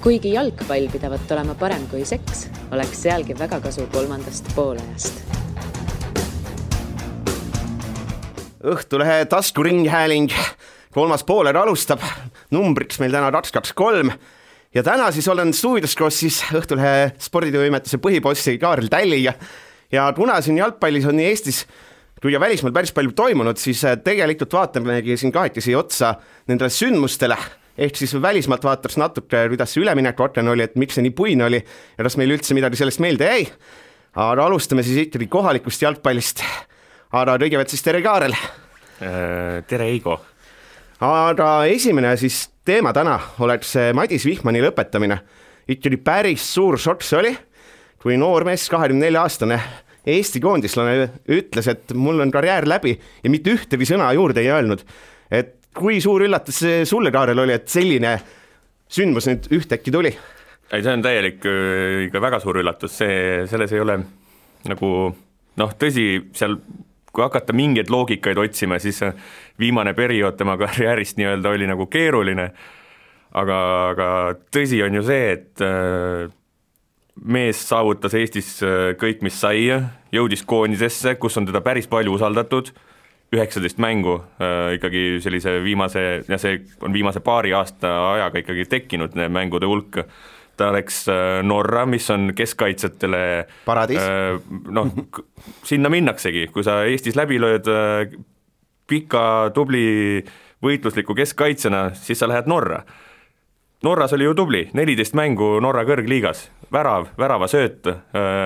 Kuigi jalgpall pidavat olema parem kui seks, oleks sealgi väga kasu kolmandast poolajast. Õhtulehe taskuringhääling, 3. pooled alustab, numbriks meil täna 223 ja täna siis olen stuudios koos siis Õhtulehe sporditoimetuse põhibossi Kaarel Tälliga ja kuna siin jalgpallis on nii Eestis kui ja välismaal päris palju toimunud, siis tegelikult vaatamegi siin kahekesi otsa nendele sündmustele. Ehk siis välismaalt vaatas natuke, kuidas see üleminek orten oli, et miks see nii puine oli ja kas meil üldse midagi sellest meelde jäi. Aga alustame siis ikkagi kohalikust jalgpallist. Aga kõigepealt siis tere Kaarel. Tere Eigo. Aga esimene siis teema täna oleks Madis Vihmani lõpetamine. Ikkagi päris suur šokk see oli, kui noor mees 24-aastane Eesti koondislane ütles, et mul on karjäär läbi ja mitte ühtegi sõna juurde ei öelnud. Et kui suur üllatus sulle, Kaarel, oli, et selline sündmus nüüd ühtäkki tuli? Ei, see on täielik ikka väga suur üllatus, selles ei ole nagu, tõsi, seal kui hakata mingeid loogikaid otsima, siis viimane periood tema karjäärist nii-öelda oli nagu keeruline, aga tõsi on ju see, et mees saavutas Eestis kõik, mis sai, jõudis koondisesse, kus on teda päris palju usaldatud, 19 mängu ikkagi sellise viimase, ja see on viimase paari aasta ajaga ikkagi tekkinud mängude hulk. Ta läks Norra, mis on keskkaitsjatele paradiis. Sinna minnaksegi, kui sa Eestis läbi lööd pika, tubli võitlusliku keskkaitsena, siis sa lähed Norra. Norras oli ju tubli, 14 mängu Norra kõrgliigas, värava sööt,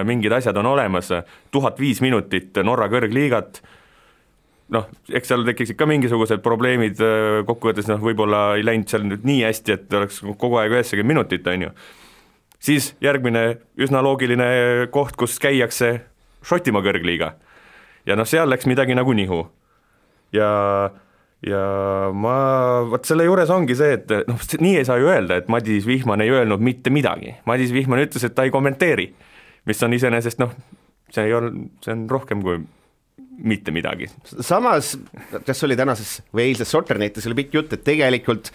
mingid asjad on olemas, 1005 minutit Norra kõrgliigat, eks seal tekiksid ka mingisugused probleemid kokkuvõttes, võib-olla ei läinud seal nüüd nii hästi, et oleks kogu aeg 90 minutit, on ju. Siis järgmine üsna loogiline koht, kus käiakse Šotimaa kõrgliiga ja seal läks midagi nagu nihu ja võt selle juures ongi see, et nii ei saa ju öelda, et Madis Vihman ei öelnud mitte midagi. Madis Vihman ütles, et ta ei kommenteeri, mis on iseenesest, see on rohkem kui mitte midagi. Samas, kas oli tänases või eilses Sotternetis oli pikk jutt, et tegelikult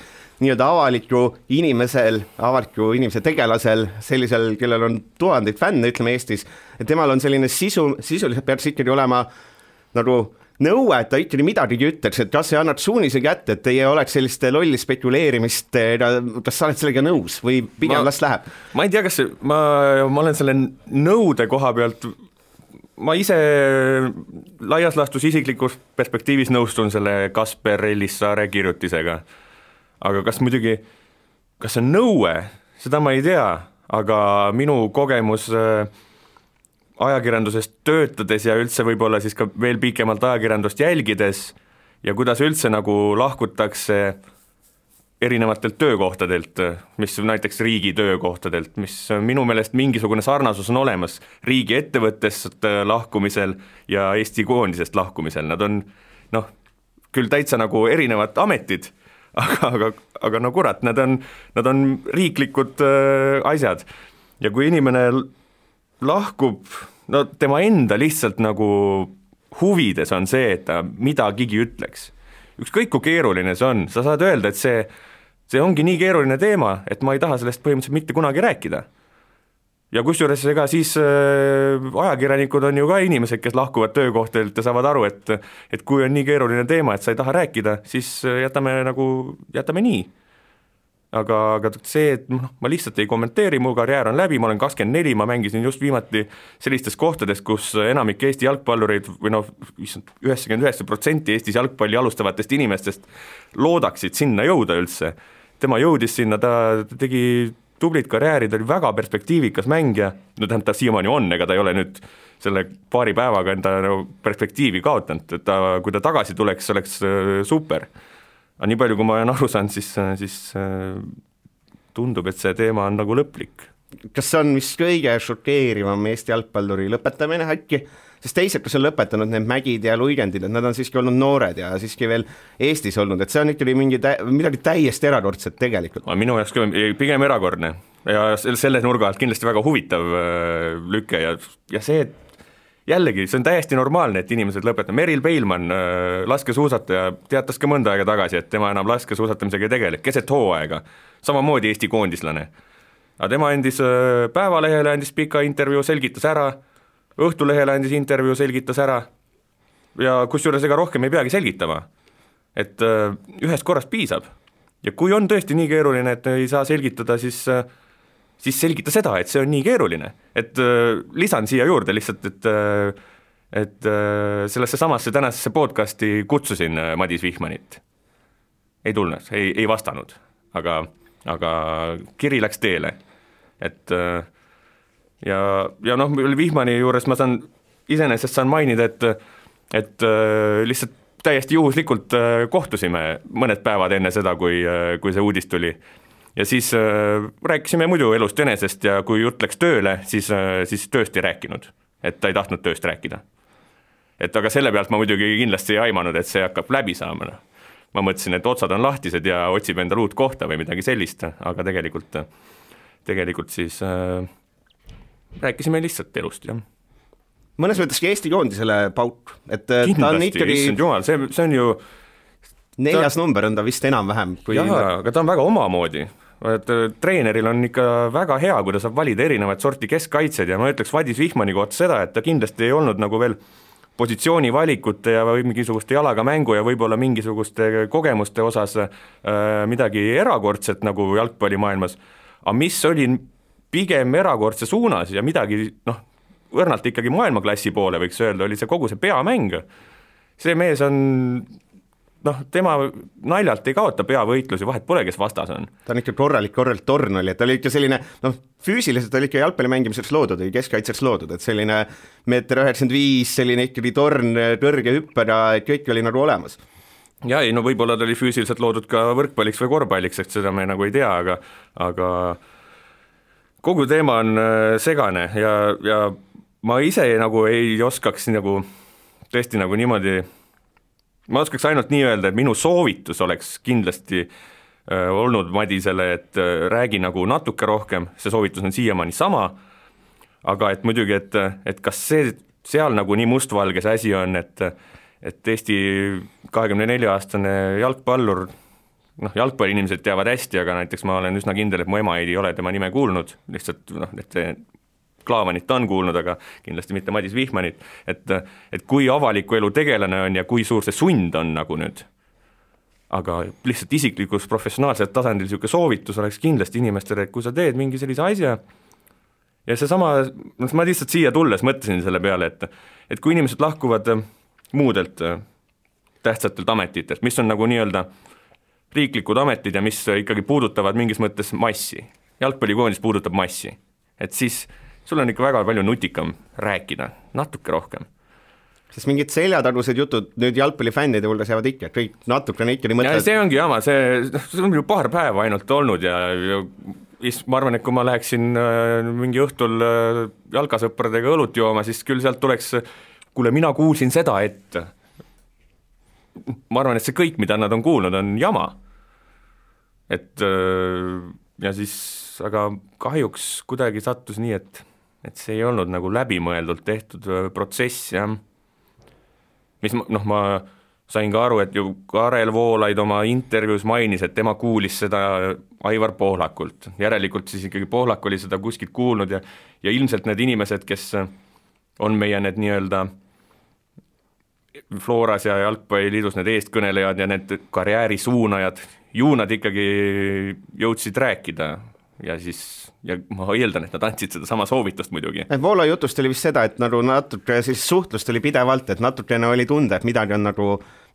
nii-öelda avaliku inimese tegelasel, sellisel, kellel on tuhandeid fänne, ütleme Eestis, et temal on selline sisuliselt peaks ikkagi olema nagu nõue, et ta ikkagi midagi ütleks, et kas see annab suunise kätte, et ei oleks sellist lolli spekuleerimist, kas sa oled sellega nõus või pigem las läheb? Ma ei tea, kas ma olen selle nõude koha pealt, ma ise laias laastus isiklikus perspektiivis nõustun selle Kasper Ellissaare kirjutisega, aga kas see on nõue, seda ma ei tea, aga minu kogemus ajakirjandusest töötades ja üldse võib-olla siis ka veel pikemalt ajakirjandust jälgides ja kuidas üldse nagu lahkutakse erinevatelt töökohtadelt, mis näiteks riigi töökohtadelt, mis minu meelest mingisugune sarnasus on olemas riigi ettevõttest lahkumisel ja Eesti koondisest lahkumisel. Nad on küll täitsa nagu erinevad ametid, aga no kurat, nad on riiklikud asjad ja kui inimene lahkub, tema enda lihtsalt nagu huvides on see, et ta midagigi ütleks. Ükskõik kui keeruline see on, sa saad öelda, et see ongi nii keeruline teema, et ma ei taha sellest põhimõtteliselt mitte kunagi rääkida. Ja kusjuures ega siis ajakirjanikud on ju ka inimesed, kes lahkuvad töökohtadelt ja saavad aru, et kui on nii keeruline teema, et sa ei taha rääkida, siis jätame nii. Aga see, et ma lihtsalt ei kommenteeri, mu karjäär on läbi, ma olen 24, ma mängisin just viimati sellistes kohtades, kus enamik Eesti jalgpallureid või 99% Eestis jalgpalli alustavatest inimestest loodaksid sinna jõuda üldse. Tema jõudis sinna, ta tegi tublit karjääri, ta oli väga perspektiivikas mängija, ta siiamaani on, ega ta ei ole nüüd selle paari päevaga enda perspektiivi kaotanud, et kui ta tagasi tuleks, oleks super. Aga nii palju, kui ma olen aru saanud, siis tundub, et see teema on nagu lõplik. Kas see on vist kõige šokeerivam Eesti jalgpalluri lõpetamine äkki? Sest teised, kes on lõpetanud need Mägid ja Luigendid, et nad on siiski olnud noored ja siiski veel Eestis olnud, et see on ikkagi midagi täiesti erakordset tegelikult. Minu jaoks pigem erakordne ja selle nurga alt kindlasti väga huvitav lüke ja see, et jällegi, see on täiesti normaalne, et inimesed lõpetavad. Meril Peilmann, laskesuusataja, teatas ka mõnda aega tagasi, et tema enam laskesuusatamisega ei tegele, keset hooaega, samamoodi Eesti koondislane. aga tema andis Päevalehele andis pika intervjuu, selgitas ära, Õhtulehele andis intervjuu, selgitas ära ja kusjuures ega rohkem ei peagi selgitama, et ühest korrast piisab ja kui on tõesti nii keeruline, et ei saa selgitada, siis selgita seda, et see on nii keeruline, et lisan siia juurde lihtsalt, et sellesse samasse tänasesse podcasti kutsusin Madis Vihmanit, ei tulnud, ei vastanud, aga kiri läks teele, et ja noh, Vihmani juures ma iseenesest saan mainida, et lihtsalt täiesti juhuslikult kohtusime mõned päevad enne seda, kui see uudis tuli. Ja siis rääkisime muidu elust enesest ja kui jutt läks tööle, siis tööst ei rääkinud, et ta ei tahtnud tööst rääkida. Et aga selle pealt ma muidugi kindlasti ei aimanud, et see hakkab läbi saama. Ma mõtlesin, et otsad on lahtised ja otsib endale uut kohta või midagi sellist, aga tegelikult siis rääkisime lihtsalt elust, jah. Mõnes mõtteski Eesti koondisele pauk, et kindlasti, ta on ikkagi jumal, see on ju 4. number on ta vist enam-vähem kui... aga ta on väga omamoodi, et treeneril on ikka väga hea, kui ta saab valida erinevaid sorti keskkaitsed ja ma ütleks Madis Vihmani kohta seda, et ta kindlasti ei olnud nagu veel positsioonivalikute ja või mingisuguste jalaga mängu ja võib-olla mingisuguste kogemuste osas midagi erakordset nagu jalgpallimaailmas, aga mis oli pigem erakordse suunas ja midagi, õrnalt ikkagi maailmaklassi poole võiks öelda, oli see kogu see peamäng. See mees on, tema naljalt ei kaota peavõitlusi, vahet pole, kes vastas on. Ta on ikka korralik torn oli, et ta oli ikka selline, füüsiliselt oli ikka jalgpalli mängimiseks loodud, või keskkaitseks loodud, et selline 1,95 m, selline ikkagi torn, kõrge hüpper ja kõik oli nagu olemas. Ja ei, võib-olla ta oli füüsiliselt loodud ka võrkpalliks või korvpalliks, et seda me nagu ei tea, aga kogu teema on segane ja ma ise nagu ei oskaks nagu tõesti nagu niimoodi, ma oskaks ainult nii öelda, et minu soovitus oleks kindlasti olnud Madisele, et räägi nagu natuke rohkem, see soovitus on siiamaani sama, aga et muidugi, et kas seal nagu nii mustvalge see asi on, et Eesti 24-aastane jalgpallur, jalgpalliinimesed teavad hästi, aga näiteks ma olen üsna kindel, et mu ema ei ole tema nime kuulnud, lihtsalt et Klaavanit on kuulnud, aga kindlasti mitte Madis Vihmanit, et kui avaliku elu tegelane on ja kui suur see sund on nagu nüüd, aga lihtsalt isiklikus professionaalsel tasandil niisugune soovitus oleks kindlasti inimestele, et kui sa teed mingi sellise asja ja seesama, ma lihtsalt siia tulles mõtlesin selle peale, et kui inimesed lahkuvad muudelt tähtsatelt ametitest, mis on nagu nii-öelda riiklikud ametid ja mis ikkagi puudutavad mingis mõttes massi. Jalgpallikoondis puudutab massi. Et siis sul on ikka väga palju nutikam rääkida, natuke rohkem. Sest mingid seljatagused jutud nüüd jalgpallifännide hulgas jäävad ikka, kõik natukene ikka nii mõtled. Ja see ongi jama, see on ju paar päeva ainult olnud ja ma arvan, et kui ma läheksin mingi õhtul jalgasõpradega õlut jooma, siis küll sealt tuleks, kuule, mina kuulsin seda, et ma arvan, et see kõik, mida nad on kuulnud, on jama. Et ja siis, aga kahjuks kuidagi sattus nii, et see ei olnud nagu läbimõeldult tehtud protsess, jah. Mis ma sain ka aru, et ju Karel Voolaid oma intervjuus mainis, et tema kuulis seda Aivar Pohlakult. Järelikult siis ikkagi Pohlak oli seda kuskilt kuulnud ja ilmselt need inimesed, kes on meie need nii-öelda Floras ja Jalgpalliliidus need eestkõnelejad ja need karjäärisuunajad, ju nad ikkagi jõudsid rääkida ja ma eeldan, et nad andsid seda sama soovitust muidugi. Voola jutust oli vist seda, et nagu natuke siis suhtlust oli pidevalt, et natukene oli tunda, et midagi on nagu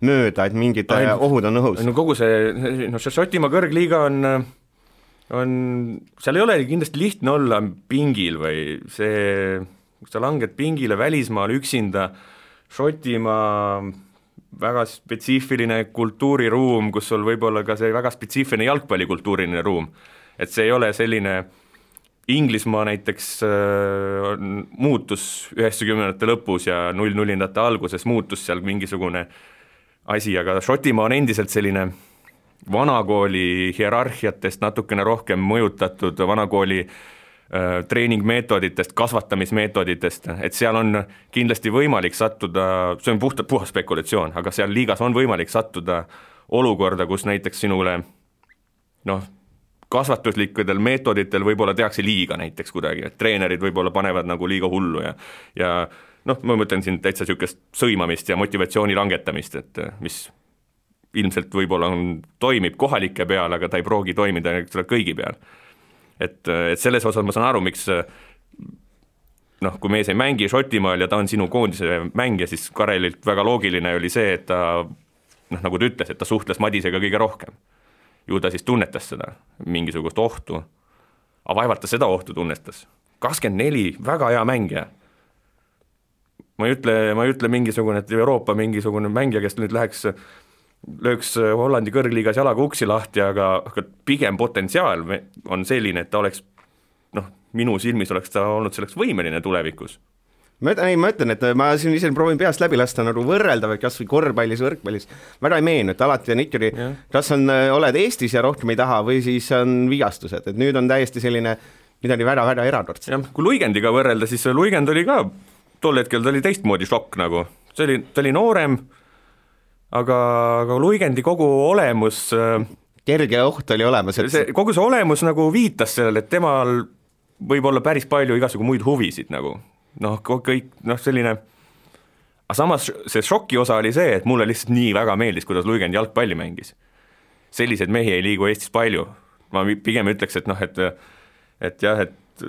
mööda, et mingid ohud on õhus. No kogu see Šotimaa kõrgliiga on, seal ei ole kindlasti lihtne olla pingil või see, kui sa langed pingile välismaal üksinda, Šotimaa väga spetsiifiline kultuuriruum, kus sul võib-olla ka see väga spetsiifiline jalgpallikultuuriline ruum, et see ei ole selline, Inglismaa näiteks muutus 90-ndate lõpus ja 00-ndate alguses muutus seal mingisugune asi, aga Šotimaa on endiselt selline vanakooli hierarhiatest natukene rohkem mõjutatud vanakooli treeningmeetoditest, kasvatamismeetoditest, et seal on kindlasti võimalik sattuda, see on puhas spekulatsioon, aga seal liigas on võimalik sattuda olukorda, kus näiteks sinule kasvatuslikudel meetoditel võib-olla tehakse liiga näiteks kuidagi, et treenerid võib-olla panevad nagu liiga hullu ja noh, ma mõtlen siin täitsa niisugust sõimamist ja motivatsiooni langetamist, et mis ilmselt võib-olla toimib kohalike peal, aga ta ei proogi toimida kõigi peal. Et selles osas ma saan aru, miks noh, kui mees ei mängi Šotimaal ja ta on sinu koondise mängija, siis Karelilt väga loogiline oli see, et ta noh, nagu ta ütles, et ta suhtles Madisega kõige rohkem. Ju ta siis tunnetas seda, mingisugust ohtu. Aga vaevalt ta seda ohtu tunnetas. 24, väga hea mängija. Ma ei ütle mingisugune, et Euroopa mingisugune mängija, kes nüüd lööks Hollandi kõrgliigas jalaga uksi lahti, aga pigem potentsiaal on selline, et ta oleks, noh, minu silmis oleks ta olnud selleks võimeline tulevikus. Ma ütlen, et ma siin ise proovin peast läbi lasta nagu võrrelda või kas või korvpallis, võrkpallis. Väga ei meenu, et alati on ikkagi, kas oled Eestis ja rohkem ei taha või siis on vigastused, et nüüd on täiesti selline midagi väga-väga erakordset. Ja, kui Luigendiga võrrelda, siis Luigend oli ka, tol hetkel ta oli teistmoodi šokk nagu. Ta oli noorem, aga Luigendi kogu olemus kerge oht oli olemas. Kogu see olemus nagu viitas sellele, et temal võib olla päris palju igasugu muid huvisid nagu. Noh, kõik, noh selline, aga samas see šoki osa oli see, et mulle lihtsalt nii väga meeldis, kuidas Luigend jalgpalli mängis. Sellised mehi ei liigu Eestis palju. Ma pigem ütleks, et noh, et jah, et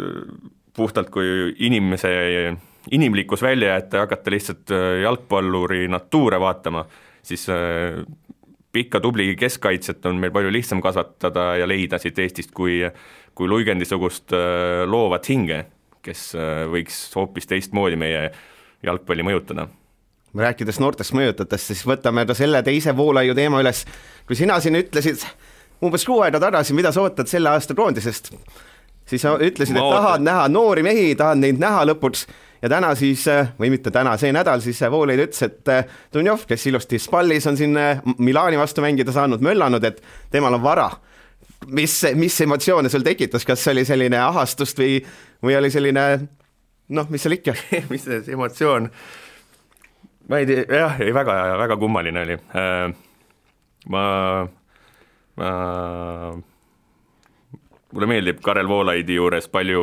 puhtalt kui inimlikkus välja jätta ja hakata lihtsalt jalgpalluri natuure vaatama, siis pikka tubli keskkaitset on meil palju lihtsam kasvatada ja leida siit Eestist kui Luigendisugust loovat hinge, kes võiks hoopis teistmoodi meie jalgpalli mõjutada. Rääkides noortest mõjutatest, siis võtame selle teise Voolaiu teema üles. Kui sina siin ütlesid umbes 6 aega tagasi, mida sa ootad selle aasta koondisest, siis ütlesid, et tahad näha noori mehi, tahad neid näha lõpuks ja täna siis, või mitte täna, see nädal siis Voolaid ütles, et Dunjov, kes ilusti Spallis on siin Milani vastu mängida saanud, möllanud, et temal on vara. Mis emotsioone sul tekitas, kas oli selline ahastust või oli selline, noh, mis seal ikka? Mis see emotsioon? Ma ei tea, jah, väga kummaline oli. Mulle meeldib Karel Voolaidi juures palju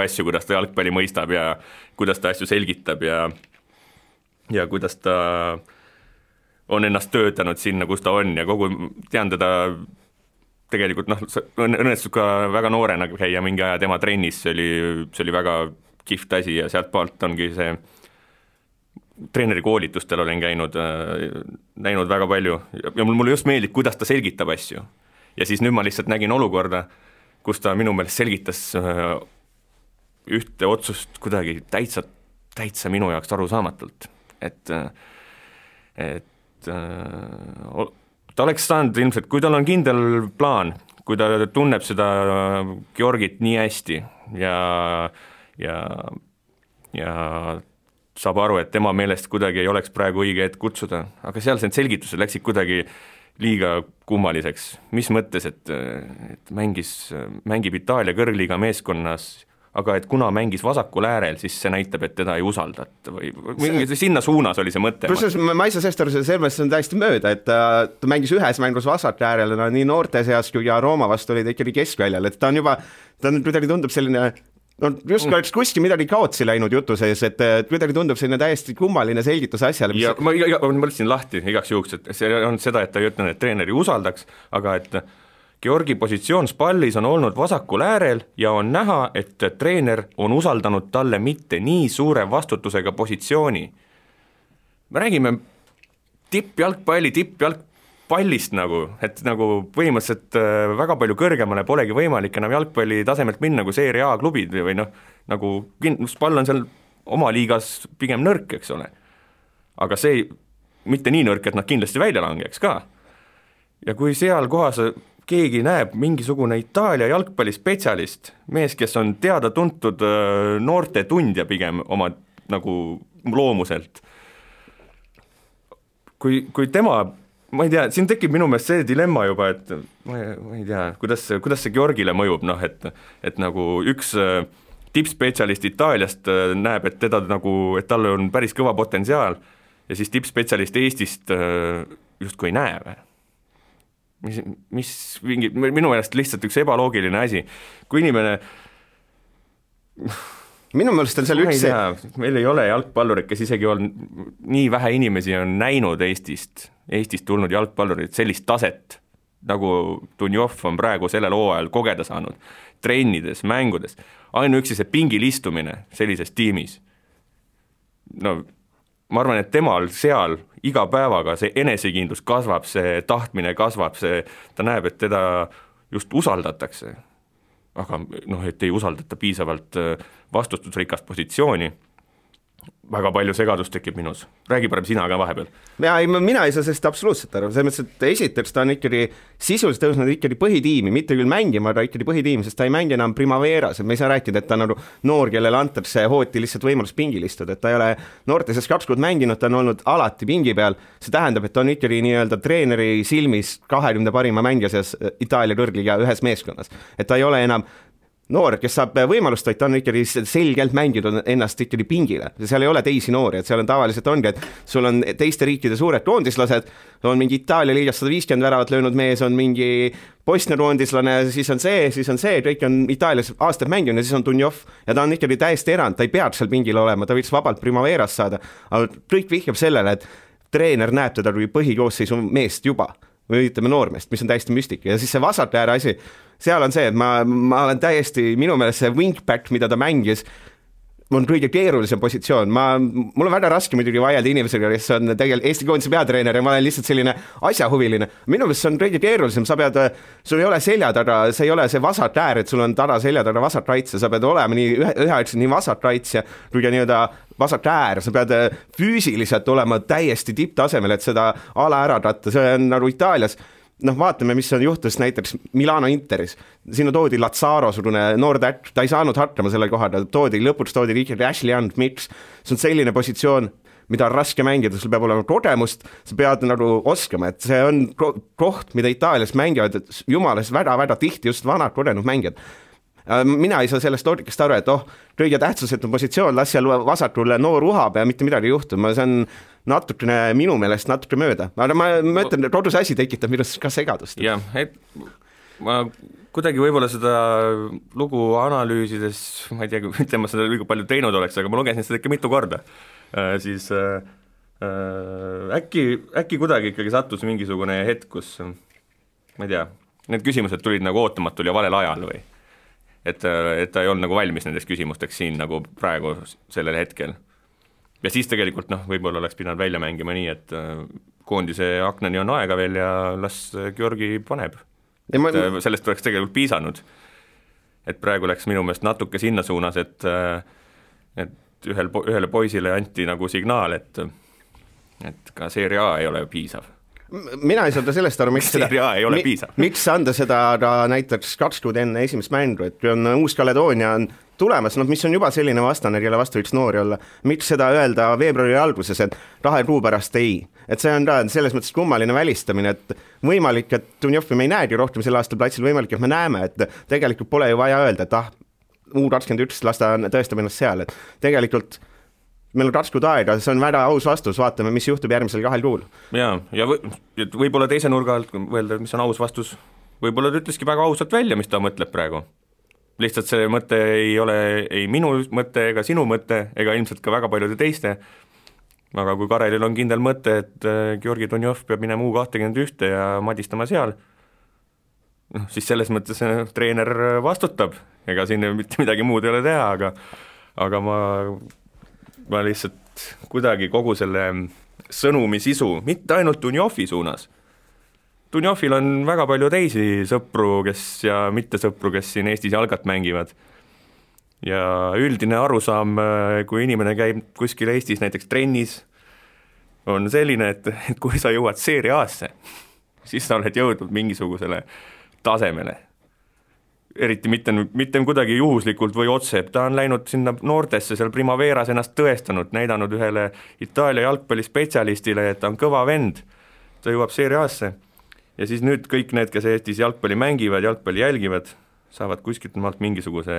asju, kuidas ta jalgpalli mõistab ja kuidas ta asju selgitab ja kuidas ta on ennast töötanud sinna, kus ta on ja tean teda tegelikult, noh, õnnestus ka väga noorena käia mingi aja tema trennis, see oli väga kihvt asi ja sealt poolt ongi see treeneri koolitustel olen näinud väga palju ja mulle just meeldib, kuidas ta selgitab asju. Ja siis nüüd ma lihtsalt nägin olukorda, kus ta minu meelest selgitas ühte otsust kuidagi täitsa minu jaoks arusaamatult, et ta oleks saanud ilmselt, kui tal on kindel plaan, kui ta tunneb seda Georgit nii hästi ja saab aru, et tema meelest kuidagi ei oleks praegu õige hetk kutsuda, aga seal see selgitused läksid kuidagi liiga kummaliseks. Mis mõttes, et mängib Itaalia kõrgliiga meeskonnas, aga et kuna mängis vasakul äärel, siis see näitab, et teda ei usaldata või sinna suunas oli see mõte. Ma ei saa sellest aru, selles on täiesti mööda, et ta mängis ühes mängus vasak äärel, nii noorte seas kui ja Rooma vastu oli ta ikkagi keskväljal, et ta kuidagi tundub selline, no just oleks kuskil midagi kaotsi läinud jutu sees, et kuidagi tundub selline täiesti kummaline selgitus asjale. Ja ma mõtlesin lahti igaks juhuks, et see on seda, et ta ei ütle, et treeneri usaldaks, aga et Georgi positsioon Spallis on olnud vasakul äärel ja on näha, et treener on usaldanud talle mitte nii suure vastutusega positsiooni. Me räägime tippjalgpallist nagu, et nagu põhimõtteliselt väga palju kõrgemale polegi võimalik enam jalgpalli tasemelt minna kui Serie A klubid või noh, nagu Spall on seal oma liigas pigem nõrk, eks ole. Aga see mitte nii nõrk, et nad kindlasti välja langeks ka. Ja kui seal kohas keegi näeb mingisugune Itaalia jalgpallispetsialist, mees, kes on teada-tuntud noorte tundja pigem oma nagu loomuselt. Kui tema, ma ei tea, siin tekib minu meelest see dilemma juba, et ma ei tea, kuidas see Georgile mõjub, noh, et nagu üks tippspetsialist Itaaliast näeb, et teda nagu, et tal on päris kõva potentsiaal ja siis tippspetsialist Eestist justkui ei näe. minu meelest lihtsalt üks ebaloogiline asi. Kui inimene minu meelest on seal üks meil ei ole jalgpallurid, kes isegi on nii vähe inimesi on näinud Eestist tulnud jalgpallurid sellist taset, nagu Dunjov on praegu sellel hooajal kogeda saanud, trennides, mängudes, ainuüksi see pingil istumine sellises tiimis. No ma arvan, et temal seal iga päevaga see enesekindlus kasvab, see tahtmine kasvab, ta näeb, et teda just usaldatakse, aga et ei usaldata piisavalt vastutusrikast positsiooni, väga palju segadust tekib minus. Räägi parem sina ka vahepeal. Mina ei saa sellest absoluutselt aru, selles mõttes, et esiteks ta on ikkagi sisuliselt tõusnud ikkagi põhitiimi, mitte küll mängima, aga ikkagi põhitiimi, sest ta ei mängi enam Primaveras, et me ei saa rääkida, et ta on nagu noor, kellele antakse hooti lihtsalt võimalus pingil istuda, et ta ei ole noorteses 2 kuud mänginud, ta on olnud alati pingi peal, see tähendab, et ta on ikkagi nii-öelda treeneri silmis 20 parima mängija seas Itaalia kõrgliga ühes meeskonnas, et ta ei ole enam noor, kes saab võimalust, vaid ta on ikkagi selgelt mänginud ennast ikkagi pingile. Seal ei ole teisi noori, et seal on tavaliselt ongi, et sul on teiste riikide suured koondislased, on mingi Itaalia liigas 150 väravat löönud mees, on mingi Bosnia koondislane, siis on see, kõik on Itaalias aastaid mänginud ja siis on Dunjov ja ta on ikkagi täiesti erand, ta ei peaks seal pingil olema, ta võiks vabalt Primaveras saada, aga kõik vihjab sellele, et treener näeb teda kui põhikoosseisu meest juba või ütleme noormeest, mis on täiesti müstika ja siis see vasakääre asi, seal on see, et ma olen täiesti, minu meelest see wingback, mida ta mängis, on kõige keerulisem positsioon, mul on väga raske muidugi vaielda inimesega, kes on tegelikult Eesti koondise peatreener ja ma olen lihtsalt selline asjahuviline, minu meelest see on kõige keerulisem, sul ei ole selja taga, see ei ole see vasak äär, et sul on taga selja taga vasak raitse, sa pead olema nii vasak raitse kui ka nii-öelda vasak äär, sa pead füüsiliselt olema täiesti tipptasemel, et seda ala ära tatta, see on nagu Itaalias, vaatame, mis on juhtus näiteks Milano Interis, sinna toodi Lazzaro, noor tätt, ta ei saanud hakkama selle kohada, lõpuks toodi ikkagi Ashley Young, miks? See on selline positsioon, mida on raske mängida, sul peab olema kogemust, sa pead nagu oskama, et see on koht, mida Itaalias mängivad, et jumalas väga-väga tihti just vanad kogenud mängijad. Mina ei saa sellest loogikast aru, et kõige tähtsusetu positsioon, las seal vasakul noor uhab ja mitte midagi juhtuma, see on natukene minu meelest natuke mööda, aga ma ütlen, et kodus asi tekitab minust ka segadust. Jah, et ma kuidagi võib-olla seda lugu analüüsides, ma ei tea, mitte ma seda liiga palju teinud oleks, aga ma lugesin seda ikka mitu korda, siis äkki kuidagi ikkagi sattus mingisugune hetk, kus ma ei tea, need küsimused tulid nagu ootamatul ja valel ajal või et ta ei olnud nagu valmis nendest küsimusteks siin nagu praegu sellel hetkel. Ja siis tegelikult võib-olla oleks pidanud välja mängima nii, et koondise aknani on aega veel ja las Georgi paneb. Sellest oleks tegelikult piisanud. Et praegu läks minu meelest natuke sinna suunas, et ühele poisile anti nagu signaal, et ka Serie A ei ole piisav. Mina ei saa sellest aru, miks anda seda näiteks 2 kuud enne esimest mängu, et kui on Uus-Kaledoonia on tulemas, mis on juba selline vastane, kelle vastu võiks noori olla, miks seda öelda veebruari alguses, et 2 kuu pärast ei. Et see on selles mõttes kummaline välistamine, et võimalik, et Dunjovi me ei näegi rohkem selle aasta platsil, võimalik, et me näeme, et tegelikult pole ju vaja öelda, et U21 las ta tõestab ennast seal, et tegelikult meil on 2 kuud aega, see on väga aus vastus, vaatame, mis juhtub järgmisel 2 kuul. Ja võib-olla teise nurga alt öelda, mis on aus vastus, võib-olla ta ütleski väga ausalt välja, mis ta mõtleb praegu. Lihtsalt see mõte ei ole ei minu mõte ega sinu mõte, ega ilmselt ka väga paljude teiste, aga kui Karelil on kindel mõte, et Georgi Dunjov peab minema U21 ja madistama seal, siis selles mõttes treener vastutab, ega siin mitte midagi muud ei ole teha, aga ma lihtsalt kuidagi kogu selle sõnumi sisu, mitte ainult Dunjovi suunas. Dunjovil on väga palju teisi sõpru, ja mitte sõpru, kes siin Eestis jalgat mängivad. Ja üldine arusaam, kui inimene käib kuskil Eestis näiteks trennis, on selline, et kui sa jõuad Serie A-sse, siis sa oled jõudnud mingisugusele tasemele. Eriti mitte kuidagi juhuslikult või otse, ta on läinud sinna noortesse seal Primaveras ennast tõestanud, näidanud ühele Itaalia jalgpallispetsialistile, et ta on kõva vend, ta jõuab Serie A-sse ja siis nüüd kõik need, kes Eestis jalgpalli mängivad, jalgpalli jälgivad, saavad kuskilt maalt mingisuguse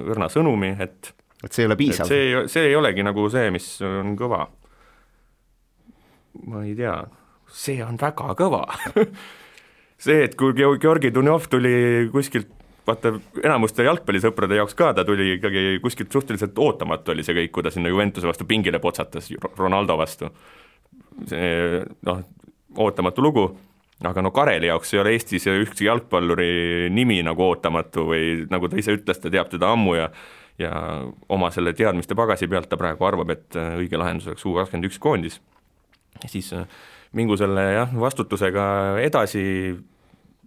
õrna sõnumi, et see ei ole piisav. See ei olegi nagu see, mis on kõva. Ma ei tea, see on väga kõva see, et kui Georgi Dunjov tuli kuskilt, vaata enamuste jalgpallisõprade jaoks ka, ta tuli ikkagi kuskilt suhteliselt ootamatu oli see kõik, kui ta sinna Juventuse vastu pingile potsatas Ronaldo vastu. See, ootamatu lugu, aga Kareli jaoks ei ole Eestis ükski jalgpalluri nimi nagu ootamatu või nagu ta ise ütles, ta teab teda ammu ja oma selle teadmiste pagasi pealt ta praegu arvab, et õige lahendus oleks U21 koondis. Ja siis mingu selle vastutusega edasi,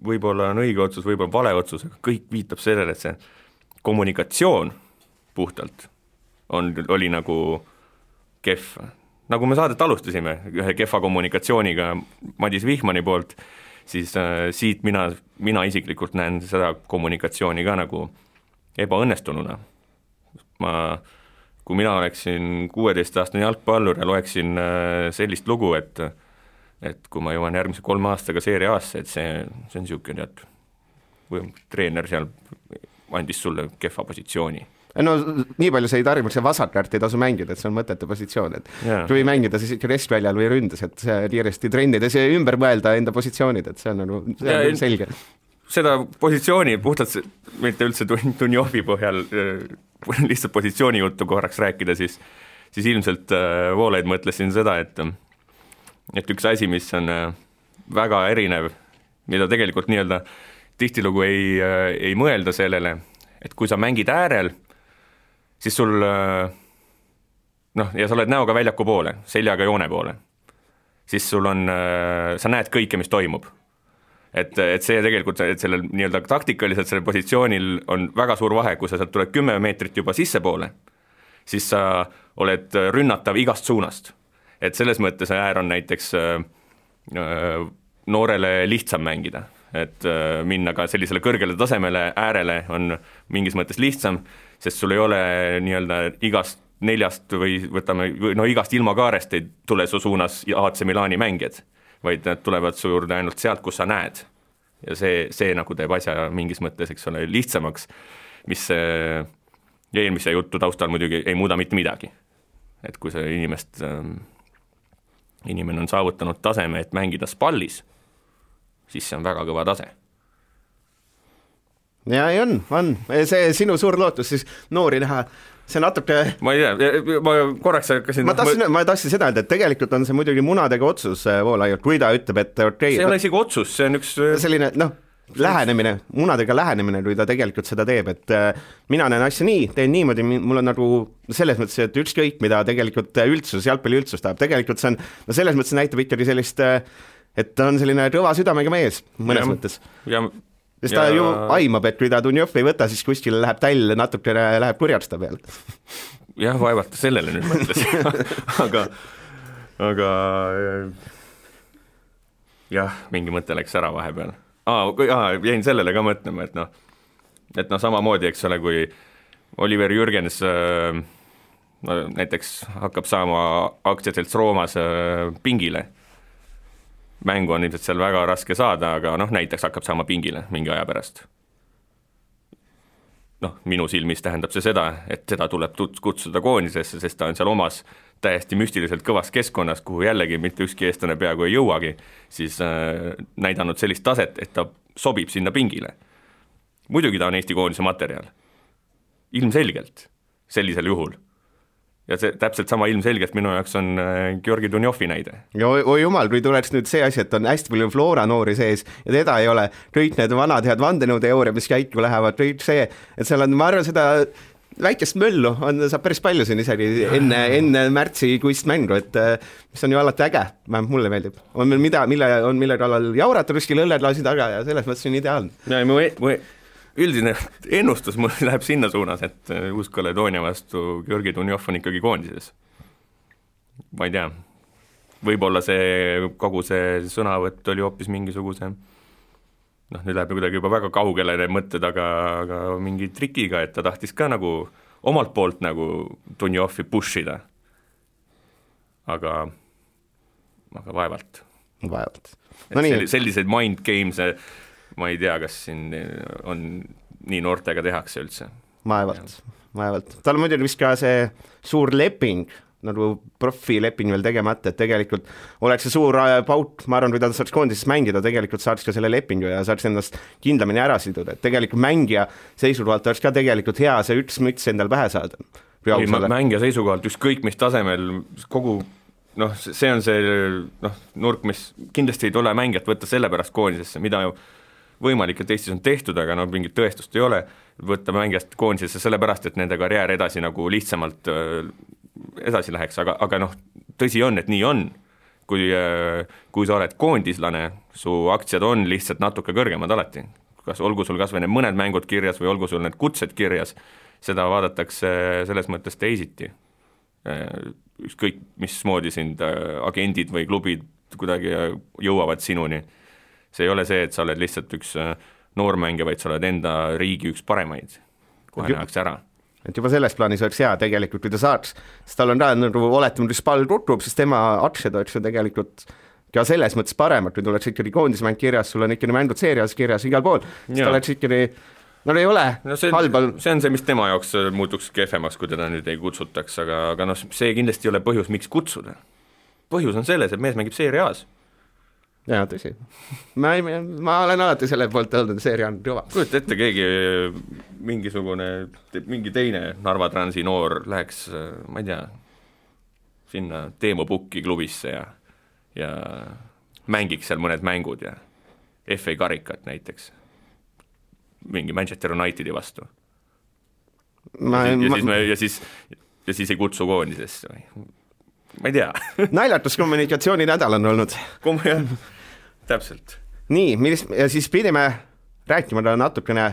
võib-olla on õige otsus, võib-olla vale otsus, aga kõik viitab sellele, et see kommunikatsioon puhtalt oli nagu kehv. Nagu me saadet alustasime ühe kehva kommunikatsiooniga Madis Vihmani poolt, siis siit mina isiklikult näen seda kommunikatsiooni ka nagu ebaõnnestununa. Kui mina oleksin 16-aastane jalgpallur ja loeksin sellist lugu, et kui ma jõuan järgmise 3 aastaga Serie A-sse, et see on niisugune, või treener seal andis sulle kehva positsiooni. No nii palju see ei tarvitse, see vasakäärt ei tasu mängida, et see on mõtete positsioon, et kui mängida siis ikka restväljal või ründes, et see kiiresti trennides ja ümber mõelda enda positsioonid, et see on selge. Seda positsiooni puhtalt, mitte üldse Dunjovi põhjal, lihtsalt positsiooni juttu korraks rääkida, siis ilmselt Voolaid mõtlesin seda, et üks asi, mis on väga erinev, mida tegelikult nii-öelda tihtilugu ei mõelda sellele, et kui sa mängid äärel, siis sul, ja sa oled näoga väljaku poole, seljaga joone poole, siis sul on, sa näed kõike, mis toimub. Et see tegelikult, et sellel nii-öelda taktikaliselt sellel positsioonil on väga suur vahe, kui sa sealt tuled 10 meetrit juba sisse poole, siis sa oled rünnatav igast suunast. Et selles mõttes äär on näiteks noorele lihtsam mängida, et minna ka sellisele kõrgele tasemele äärele on mingis mõttes lihtsam, sest sul ei ole nii-öelda igast 4 või võtame, igast ilmakaarest ei tule su suunas AC Milani mängijad, vaid nad tulevad su juurde ainult sealt, kus sa näed. Ja see nagu teeb asja mingis mõttes, eks ole, lihtsamaks, mis eelmise jutu taustal muidugi ei muuda mitte midagi. Et kui see inimene on saavutanud taseme, et mängida spallis, siis see on väga kõva tase. Ja ei on. See sinu suur lootus siis noori näha, see natuke... Ma ei tea, ma korraks hakkasin... Ma tahtsin seda, et tegelikult on see muidugi munadega otsus Voolaialt, kui ta ütleb, et see ei ole isegi otsus, see on üks... Selline, lähenemine, munadega lähenemine, kui ta tegelikult seda teeb, et mina näen asja nii, teen niimoodi, mul on nagu selles mõttes, et ükskõik, mida tegelikult jalgpalli üldsus tahab, tegelikult see on, selles mõttes näitab ikkagi sellist, et ta on selline kõva südamega mees mõnes mõttes. Sest ta ju aimab, et kui ta Dunjov ei võta, siis kuskil läheb täll, natuke läheb kurjasta peale. Jah, vaevalt sellele nüüd mõtles. aga jah, mingi mõte läks ära vahepeal. Jäin sellele ka mõtlema, et samamoodi, eks ole, kui Oliver Jürgens näiteks hakkab saama aktsiaselts Roomas pingile. Mängu on ilmselt seal väga raske saada, aga näiteks hakkab saama pingile mingi aja pärast. Minu silmis tähendab see seda, et seda tuleb kutsuda koondisesse, sest ta on seal omas täiesti müstiliselt kõvas keskkonnas, kuhu jällegi mitte ükski eestlane peaaegu ei jõuagi, siis näidanud sellist taset, et ta sobib sinna pingile. Muidugi ta on Eesti koondise materjal. Ilmselgelt sellisel juhul. Ja see täpselt sama ilmselgelt minu jaoks on Georgi Dunjovi näide. Ja oi jumal, kui tuleks nüüd see asi, et on hästi palju Flora noori sees ja teda ei ole, kõik need vanad head vandenõuteooria, mis käiku lähevad, kõik see, et seal on, ma arvan, seda väikest möllu saab päris palju siin isegi enne märtsikuist mängu, et mis on ju alati äge, vähemalt mulle meeldib. On meil mille kallal jaurata kuskil õlledlaasi taga ja selles mõttes on ideaalne. Ja, üldine ennustus mul läheb sinna suunas, et Uus-Kaledoonia vastu Georgi Dunjov on ikkagi koondises. Ma ei tea, võib-olla kogu see sõnavõtt oli hoopis mingisuguse, nüüd läheb kuidagi juba väga kaugele need mõtted, aga mingi trikiga, et ta tahtis ka nagu omalt poolt nagu Dunjovi pushida. Aga vaevalt. Selliseid mind games ma ei tea, kas siin on nii noortega tehakse üldse. Vaevalt. Tal on muidugi vist ka see suur leping nagu profileping veel tegemata, et tegelikult oleks see suur paut, ma arvan, kui ta saaks koondises mängida, tegelikult saaks ka selle lepingu ja saaks ennast kindlamini ära siduda, et tegelikult mängija seisukohalt oleks ka tegelikult hea see üks müts endal pähe saada. Mängija seisukohalt ükskõik mis tasemel kogu see on see nurk, mis kindlasti ei tule mängijat võtta selle pärast koondisesse, mida ju võimalik, et Eestis on tehtud, aga mingit tõestust ei ole, võtta mängijast koondisesse selle pärast, et nende karjäär edasi nagu lihtsamalt edasi läheks, aga tõsi on, et nii on. Kui sa oled koondislane, su aktsiad on lihtsalt natuke kõrgemad alati. Kas olgu sul kas või need mõned mängud kirjas või olgu sul need kutsed kirjas, seda vaadatakse selles mõttes teisiti. Ükskõik mismoodi sind agendid või klubid kuidagi jõuavad sinuni. See ei ole see, et sa oled lihtsalt üks noormängija, vaid sa oled enda riigi üks paremaid. Kohe nähakse ära. Et juba selles plaanis oleks hea tegelikult, kui ta saaks, sest tal on oletama, kui Spal tutub, siis tema aktsiad oleks ju tegelikult ka selles mõttes paremad, kui tuleks ikkagi koondismäng kirjas, sul on ikkagi mängud seerias kirjas igal pool, siis ta oleks ikkagi ei ole halbal. See on see, mis tema jaoks muutuks kehvemaks, kui teda nüüd ei kutsutaks, aga see kindlasti ei ole põhjus, miks kutsuda. Põhjus on selles, et mees mängib seeriaas. Jaa, tõsi. Ma olen alati selle poolt olnud, seeria on kõva. Kujuta ette, keegi mingi teine Narva Transi noor läheks, ma ei tea, sinna Teemo Pukki klubisse ja mängiks seal mõned mängud ja FA karikat näiteks mingi Manchester Unitedi vastu. Ja siis ei kutsu koondisesse või? Ma ei tea. Naljatus kommunikatsiooni nädal on olnud. Täpselt. Nii, ja siis pidime rääkima natukene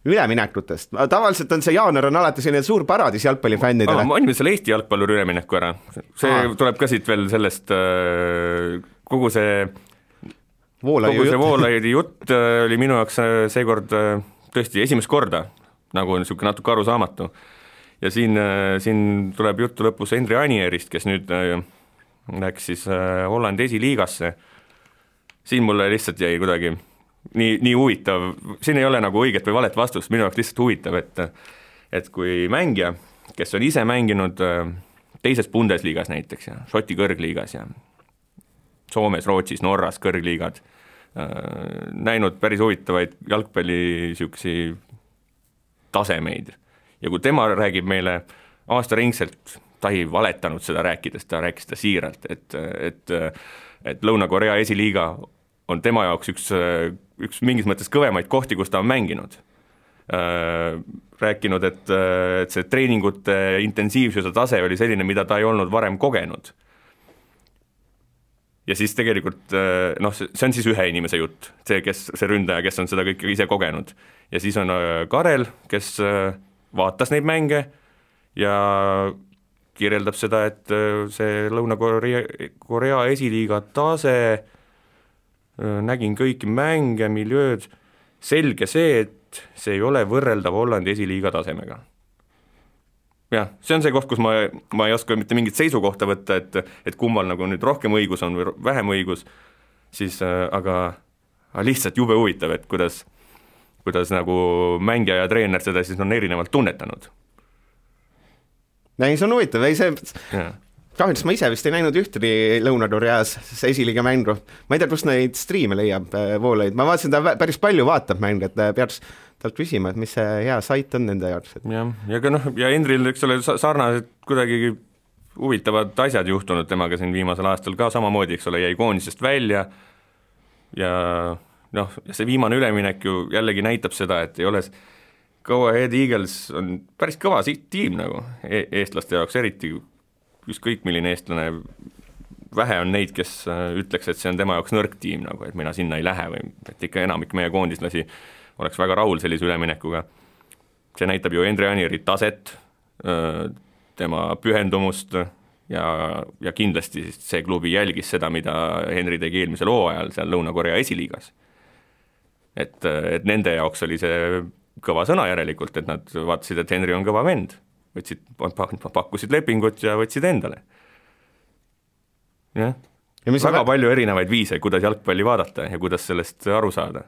üleminekutest. Tavaliselt on see jaanuar on alati selline suur paradis jalgpallifännidele. Ma anime selle Eesti jalgpalluri ülemineku ära. See tuleb ka siit veel sellest kogu see Voolaidi jutt oli minu jaoks seekord tõesti esimest korda, nagu on niisugune natuke arusaamatu. Ja siin tuleb juttu lõpus Henri Anierist, kes nüüd läks siis Hollandi esiliigasse. Siin mulle lihtsalt jäi kuidagi nii huvitav, siin ei ole nagu õiget või valet vastust, minu jaoks lihtsalt huvitav, et kui mängija, kes on ise mänginud teises Bundesliigas näiteks ja Šoti kõrgliigas ja Soomes, Rootsis, Norras kõrgliigad, näinud päris huvitavaid jalgpalli siuksi tasemeid. Ja kui tema räägib meile aastaringselt, ta ei valetanud seda rääkides, ta rääkis seda siiralt, et Lõuna-Korea esiliiga on tema jaoks üks mingis mõttes kõvemaid kohti, kus ta on mänginud. Rääkinud, et see treeningute intensiivsuse tase oli selline, mida ta ei olnud varem kogenud. Ja siis tegelikult, see on siis ühe inimese jutt, see ründaja, kes on seda kõike ise kogenud. Ja siis on Karel, kes vaatas neid mänge ja kirjeldab seda, et see Lõuna-Korea esiliiga tase, nägin kõiki mänge, miljööd, selge see, et see ei ole võrreldav Hollandi esiliiga tasemega. Jah, see on see koht, kus ma ei oska mitte mingit seisukohta võtta, et kummal nagu nüüd rohkem õigus on või vähem õigus, siis aga lihtsalt jube huvitav, et kuidas nagu mängija ja treener seda siis on erinevalt tunnetanud. Ei, see on huvitav, kahjuks ma ise vist ei näinud ühtegi Lõuna-Koreas esiliiga mängu. Ma ei tea, kus neid striime leiab Voolaid. Ma vaatasin, ta päris palju vaatab mängu, et peaks talt küsima, et mis see hea sait on nende jaoks. Ja Endril, eks ole, sarnased kuidagi huvitavad asjad juhtunud temaga siin viimasel aastal ka samamoodi, eks ole, jäi koondisest välja ja see viimane üleminek ju jällegi näitab seda, et ei ole Go Ahead Eagles on päris kõva tiim nagu eestlaste jaoks, eriti ükskõik milline eestlane, vähe on neid, kes ütleks, et see on tema jaoks nõrk tiim, nagu, et mina sinna ei lähe või et ikka enamik meie koondislasi oleks väga rahul sellise üleminekuga. See näitab ju Henri Anieri taset, tema pühendumust ja kindlasti see klubi jälgis seda, mida Henri tegi eelmisel hooajal seal Lõuna-Korea esiliigas. Et nende jaoks oli see kõva sõna järelikult, et nad vaatasid, et Henri on kõva vend, pakkusid lepingut ja võtsid endale. Ja väga palju erinevaid viise, kuidas jalgpalli vaadata ja kuidas sellest aru saada.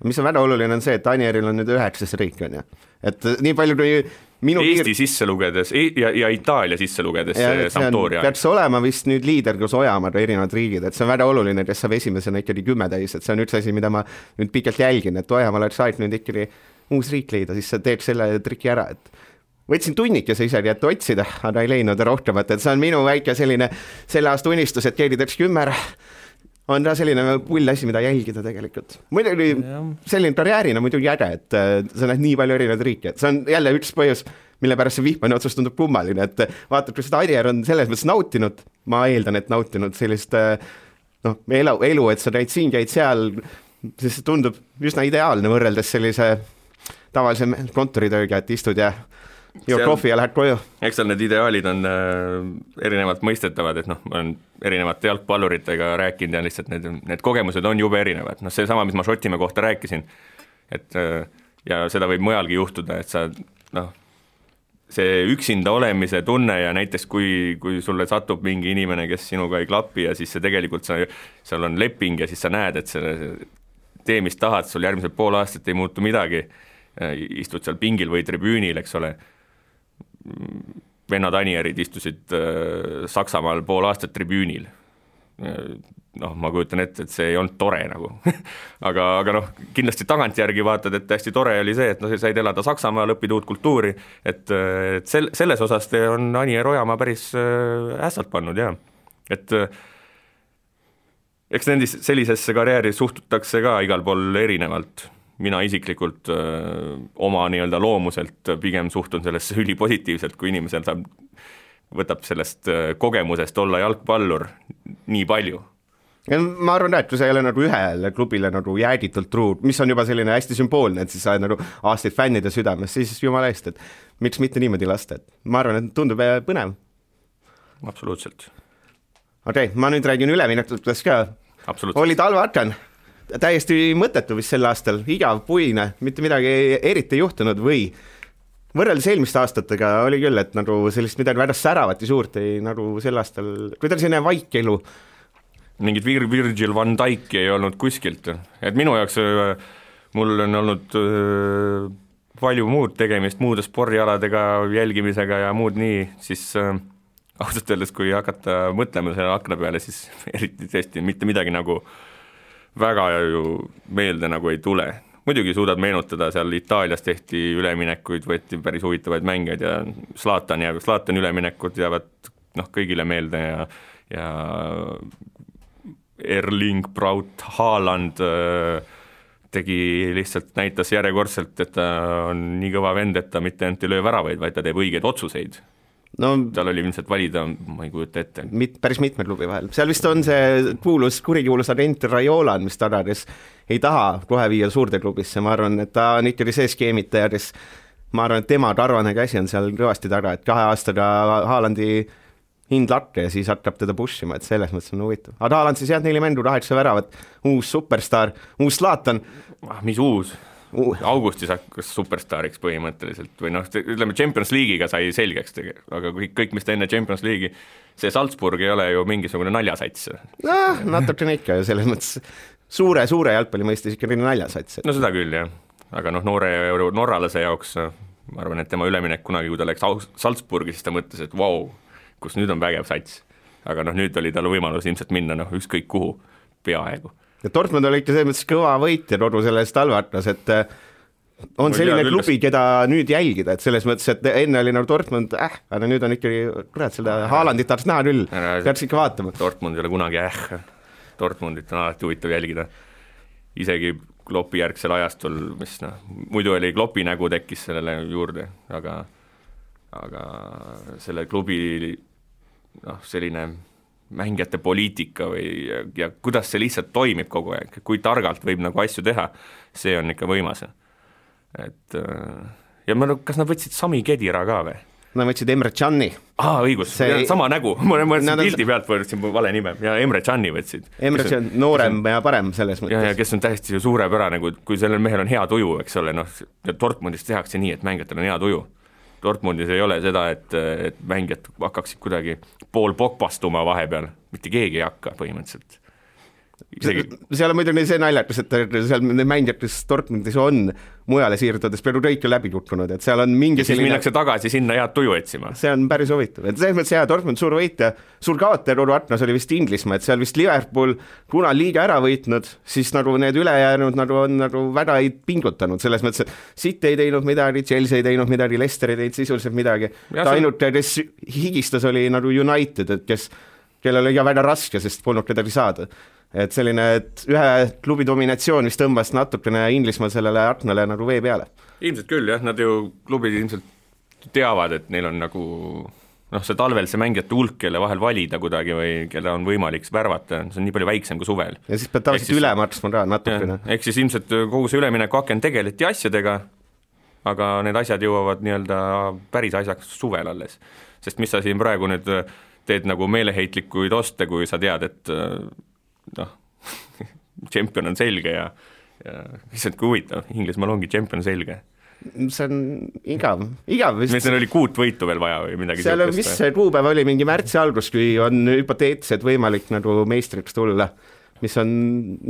Mis on väga oluline on see, et Anieril on nüüd 9. riik, on ju. Et nii palju, kui Eesti sisse lugedes ja Itaalia sisse lugedes Sampdoria. Peaks olema vist nüüd liider, kus Ojamaad erinevad riigid, et see on väga oluline, kes saab esimesena ikkagi 10 täis, et see on üks asi, mida ma nüüd pikalt jälgin, et Ojamaal oleks aeg nüüd ikkagi uus riik leida, siis sa teed selle triki ära, et võtsin tunnikese isegi, et otsida, aga ei leidnud rohkemat, et see on minu väike selline selle aasta unistus, et keegi teeks 10 on ta selline pull asi, mida jälgida tegelikult. Muidugi selline karjäärina muidugi äge, et sa näed nii palju erinevaid riike, et see on jälle üks põhjus, mille pärast see Vihmani otsus tundub kummaline, et vaatad, kui seda Arier on selles mõttes nautinud, ma eeldan, et nautinud sellist elu, et sa käid siin, käid seal, siis see tundub üsna ideaalne võrreldes sellise tavalise kontoritööga, et istud ja kohvi ja lähed koju. Eks seal need ideaalid on erinevalt mõistetavad, et ma olen erinevate jalgpalluritega rääkinud ja lihtsalt need kogemused on jube erinevad. See sama, mis ma Šotimäe kohta rääkisin, et ja seda võib mujalgi juhtuda, et sa see üksinda olemise tunne ja näiteks kui sulle satub mingi inimene, kes sinuga ei klapi ja siis see tegelikult seal on leping ja siis sa näed, et tee, mis tahad, sul järgmised pool aastat ei muutu midagi, istud seal pingil või tribüünil, eks ole. Vennad Anierid istusid Saksamaal pool aastat tribüünil. Ma kujutan ette, et see ei olnud tore nagu. aga kindlasti tagantjärgi vaatad, et hästi tore oli see, et said elada Saksamaal, õppida uut kultuuri, et selles osas on Anier Ojamaa päris ässalt pannud, jah. Et eks sellisesse karjääri suhtutakse ka igal pool erinevalt. Mina isiklikult oma nii-öelda loomuselt pigem suhtun sellesse ülipositiivselt, kui inimesel võtab sellest kogemusest olla jalgpallur nii palju. Ja ma arvan, et kui sa ei ole nagu ühele klubile nagu jäägitult truu, mis on juba selline hästi sümboolne, et siis sa oled nagu aastaid fännide südames, siis jumala eest, et miks mitte niimoodi lasta, et ma arvan, et tundub põnev. Absoluutselt. Okei, ma nüüd räägin üleminekutest ka. Oli talveaken. Täiesti mõttetu vist sel aastal, igav, puine, mitte midagi eriti juhtunud või võrreldes eelmiste aastatega oli küll, et nagu sellist midagi väga säravat ja suurt ei nagu sel aastal, kui ta selline vaikelu. Mingid Virgil van Dijk ei olnud kuskilt, et minu jaoks mul on olnud palju muud tegemist, muude spordialadega, jälgimisega ja muud nii, siis ausalt öeldes, kui hakata mõtlema selle akna peale, siis eriti tõesti mitte midagi nagu väga ju meelde nagu ei tule. Muidugi suudad meenutada, seal Itaalias tehti üleminekuid, võeti päris huvitavaid mängeid ja Zlatan üleminekud jäävad kõigile meelde ja Erling Braut Haaland tegi lihtsalt, näitas järjekordselt, et ta on nii kõva vend, et ta mitte ainult ei löö väravaid, vaid ta teeb õigeid otsuseid. Tal oli ilmselt valida, ma ei kujuta ette. Päris mitme klubi vahel. Seal vist on see kurikuulus agent Raiola, mis ta kes ei taha kohe viia suurde klubisse. Ma arvan, et ta on ikkagi see skeemitaja, kes ma arvan, et tema karvane käsi on seal kõvasti taga, et 2 aastaga Haalandi hind lakke ja siis hakkab teda pushima, et selles mõttes on huvitav. Aga Haaland siis 4 mängu, 8 väravat, uus superstar, uus Zlatan. Mis uus? Augustis hakkas superstariks põhimõtteliselt või ütleme Champions League'iga sai selgeks, aga kõik, mis ta enne Champions League'i, see Salzburg ei ole ju mingisugune naljasats. Natukene ikka ju selles mõttes suure jalgpalli mõistes ikka naljasats. No seda küll, jah. Aga noore norralase jaoks, ma arvan, et tema üleminek kunagi, kui ta läks Salzburgi, siis ta mõtles, et vau, kus nüüd on vägev sats. Aga nüüd oli tal võimalus ilmselt minna ükskõik kuhu peaaegu. Ja Dortmund oli ikka selles mõttes kõva võit ja kogu selles talveatlas, et on selline klubi, keda nüüd jälgida, et selles mõttes, et enne oli Dortmund, aga nüüd on ikkagi, kurat, seda Haalandit tahaks näha küll, peaks ikka vaatama. Dortmund ei ole kunagi Dortmundit on alati huvitav jälgida. Isegi Kloppi järgsel ajastul, mis muidu oli Kloppi nägu tekkis sellele juurde, aga selle klubi selline mängijate poliitika ja kuidas see lihtsalt toimib kogu aeg, kui targalt võib asju teha, see on ikka võimas. Et, ja kas nad võtsid Sami Khedira ka või? Nad võtsid Emre Can'i. Õigus, sama nägu, ma pildi pealt võtsin vale nime ja Emre Can'i võtsid. Emre Can, noorem ja parem selles mõttes. Ja kes on täiesti suurepärane, kui sellel mehel on hea tuju, eks ole, Dortmundis tehakse nii, et mängijatel on hea tuju. Dortmundis ei ole seda, et mängijad hakkaksid kuidagi pool pokpastuma vahepeal, mitte keegi ei hakka põhimõtteliselt. seal on muidugi see naljakas, et seal need mängijad, kes Dortmundis on mujale siirdudes, peaaegu kõik on läbi kukkunud, et seal on mingi ja siis minnakse tagasi sinna head tuju otsima. See on päris huvitav, et selles mõttes Dortmund suur võitja, suur kaotaja Roru Atnas oli vist Inglismaa, et seal vist Liverpool, kuna liiga ära võitnud, siis nagu need ülejäänud nagu on nagu väga ei pingutanud, selles mõttes, et City ei teinud midagi, Chelsea ei teinud midagi, Leicester ei teinud sisuliselt midagi, ta ainult, kes higistas, oli nagu United, et kellel oli väga raske, sest polnud kedagi saada. Et selline, et ühe klubi dominatsioon, mis tõmbas natukene Inglismaa sellele Arsenale nagu vee peale. Ilmselt küll, jah, nad ju klubid ilmselt teavad, et neil on nagu see talvel see mängijate hulk, kelle vahel valida kuidagi või kelle on võimalik värvata, see on nii palju väiksem kui suvel. Ja siis pead tavaliselt üle maksma ka natukene. Ehk siis ilmselt kogu see ülemineku aken tegeleti asjadega, aga need asjad jõuavad nii-öelda päris asjaks suvel alles. Sest mis sa siin praegu nüüd teed nagu meeleheitlikuid oste, kui sa tead, et tšempion on selge ja lihtsalt kui huvitav, Inglismaal ongi tšempion selge. See on igav vist. Meil oli 6 võitu veel vaja või midagi seal on vist see kuupäev oli mingi märtsi algus, kui on hüpoteetiliselt võimalik nagu meistriks tulla, mis on,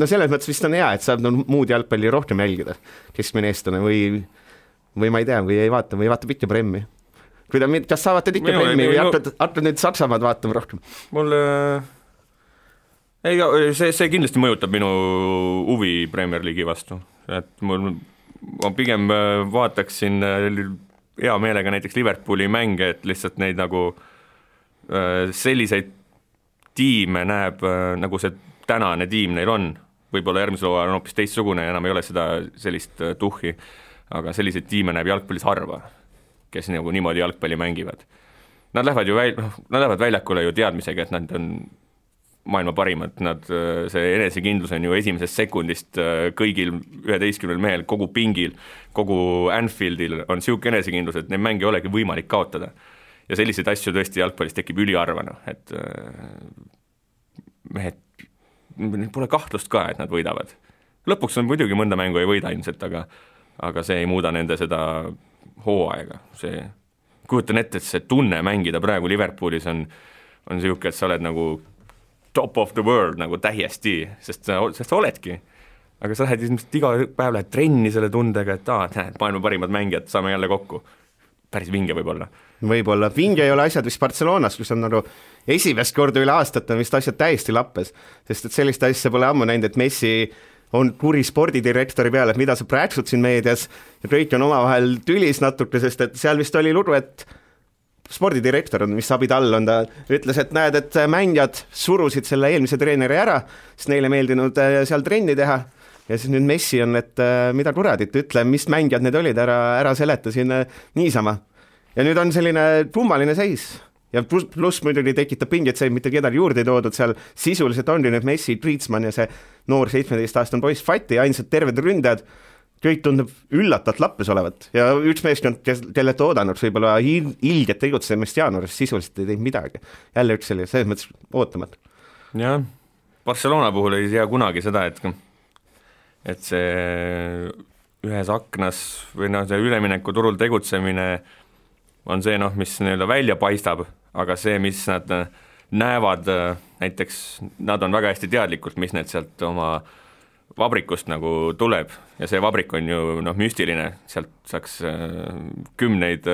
selles mõttes vist on hea, et saab muud jalgpalli rohkem jälgida keskmine eestlane või ma ei tea, või ei vaata, või vaatab ikka Premmi. Kas sa vaatad ikka Premmi või hakkad nüüd Saksamaad vaatama rohkem? Mul see kindlasti mõjutab minu huvi Premier League'i vastu, et ma pigem vaataksin hea meelega näiteks Liverpooli mänge, et lihtsalt neid nagu selliseid tiime näeb, nagu see tänane tiim neil on, võib-olla järgmisel hooajal on hoopis teistsugune ja enam ei ole seda sellist tuhhi, aga selliseid tiime näeb jalgpallis harva, kes nagu niimoodi jalgpalli mängivad. Nad lähevad väljakule ju teadmisega, et nad on maailma parimad, see enesekindlus on ju esimesest sekundist kõigil 11 mehel, kogu pingil, kogu Anfieldil on siuke enesekindlus, et neid mänge ei olegi võimalik kaotada. Ja selliseid asju tõesti jalgpallis tekib üliharvana, et mehed, pole kahtlust ka, et nad võidavad. Lõpuks on muidugi mõnda mängu ei võida ilmselt, aga see ei muuda nende seda hooaega. Kujutan ette, et see tunne mängida praegu Liverpoolis on siuke, et sa oled nagu top of the world nagu täiesti, sest sa oledki. Aga sa lähed iga päev lähed trenni selle tundega, et näed, maailma parimad mängijad, saame jälle kokku. Päris vinge võib-olla. Võib-olla. Vinge ei ole asjad vist Barcelonas, kus on nagu esimest korda üle aastat on vist asjad täiesti lappes, sest et sellist asja pole ammu näinud, et Messi on kuri spordidirektori peale, et mida sa prääksud siin meedias ja kõik on omavahel tülis natuke, sest et seal vist oli lugu, et spordidirektor on, mis Abidal on, ta ütles, et näed, et mängijad surusid selle eelmise treeneri ära, sest neile meeldinud seal trenni teha ja siis nüüd Messi on, et mida kuradit, ütle, mis mängijad need olid, ära seleta siin niisama. Ja nüüd on selline kummaline seis ja pluss muidugi tekitab pinget see, mitte kedagi juurde ei toodud, seal sisuliselt on nüüd Messi, Griezmann ja see noor 17-aastane poiss Fati, ainsad terved ründajad, kõik tundub üllatalt lappes olevat ja üks meeskond, kellelt oodanud võib-olla ilget tegutsemist jaanuaris, sisuliselt ei teinud midagi. Jälle üks selline, selles mõttes ootamat. Jah, Barcelona puhul ei tea kunagi seda, et see ühes aknas või see ülemineku turul tegutsemine on see, mis nii-öelda välja paistab, aga see, mis nad näevad, näiteks nad on väga hästi teadlikult, mis need sealt oma vabrikust nagu tuleb ja see vabrik on ju müstiline, sealt saaks kümneid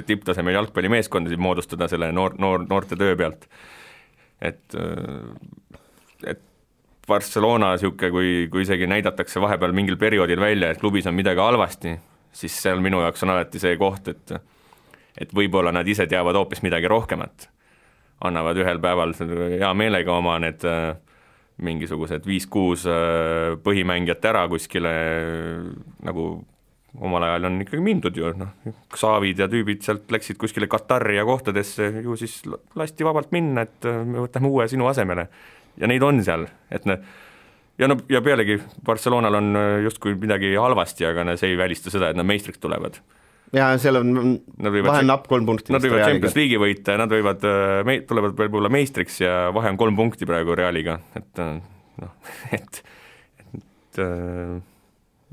tipptasemel jalgpallimeeskondasid moodustada selle noorte töö pealt. Et Barcelona siuke, kui isegi näidatakse vahepeal mingil perioodil välja, et klubis on midagi halvasti, siis seal minu jaoks on alati see koht, et võib-olla nad ise teavad hoopis midagi rohkemat. Annavad ühel päeval hea meelega oma need mingisugused 5-6 põhimängijat ära kuskile, nagu omal ajal on ikkagi mindud ju, Xavid ja tüübid sealt läksid kuskile Katari ja kohtadesse, ju siis lasti vabalt minna, et me võtame uue sinu asemele. Ja neid on seal, et ja pealegi Barcelonal on justkui midagi halvasti, aga see ei välista seda, et nad meistriks tulevad. Ja seal on vahel napp 3 punkti. Nad võivad Champions League'i võita, nad tulevad võib-olla meistriks ja vahe on 3 punkti praegu Realiga,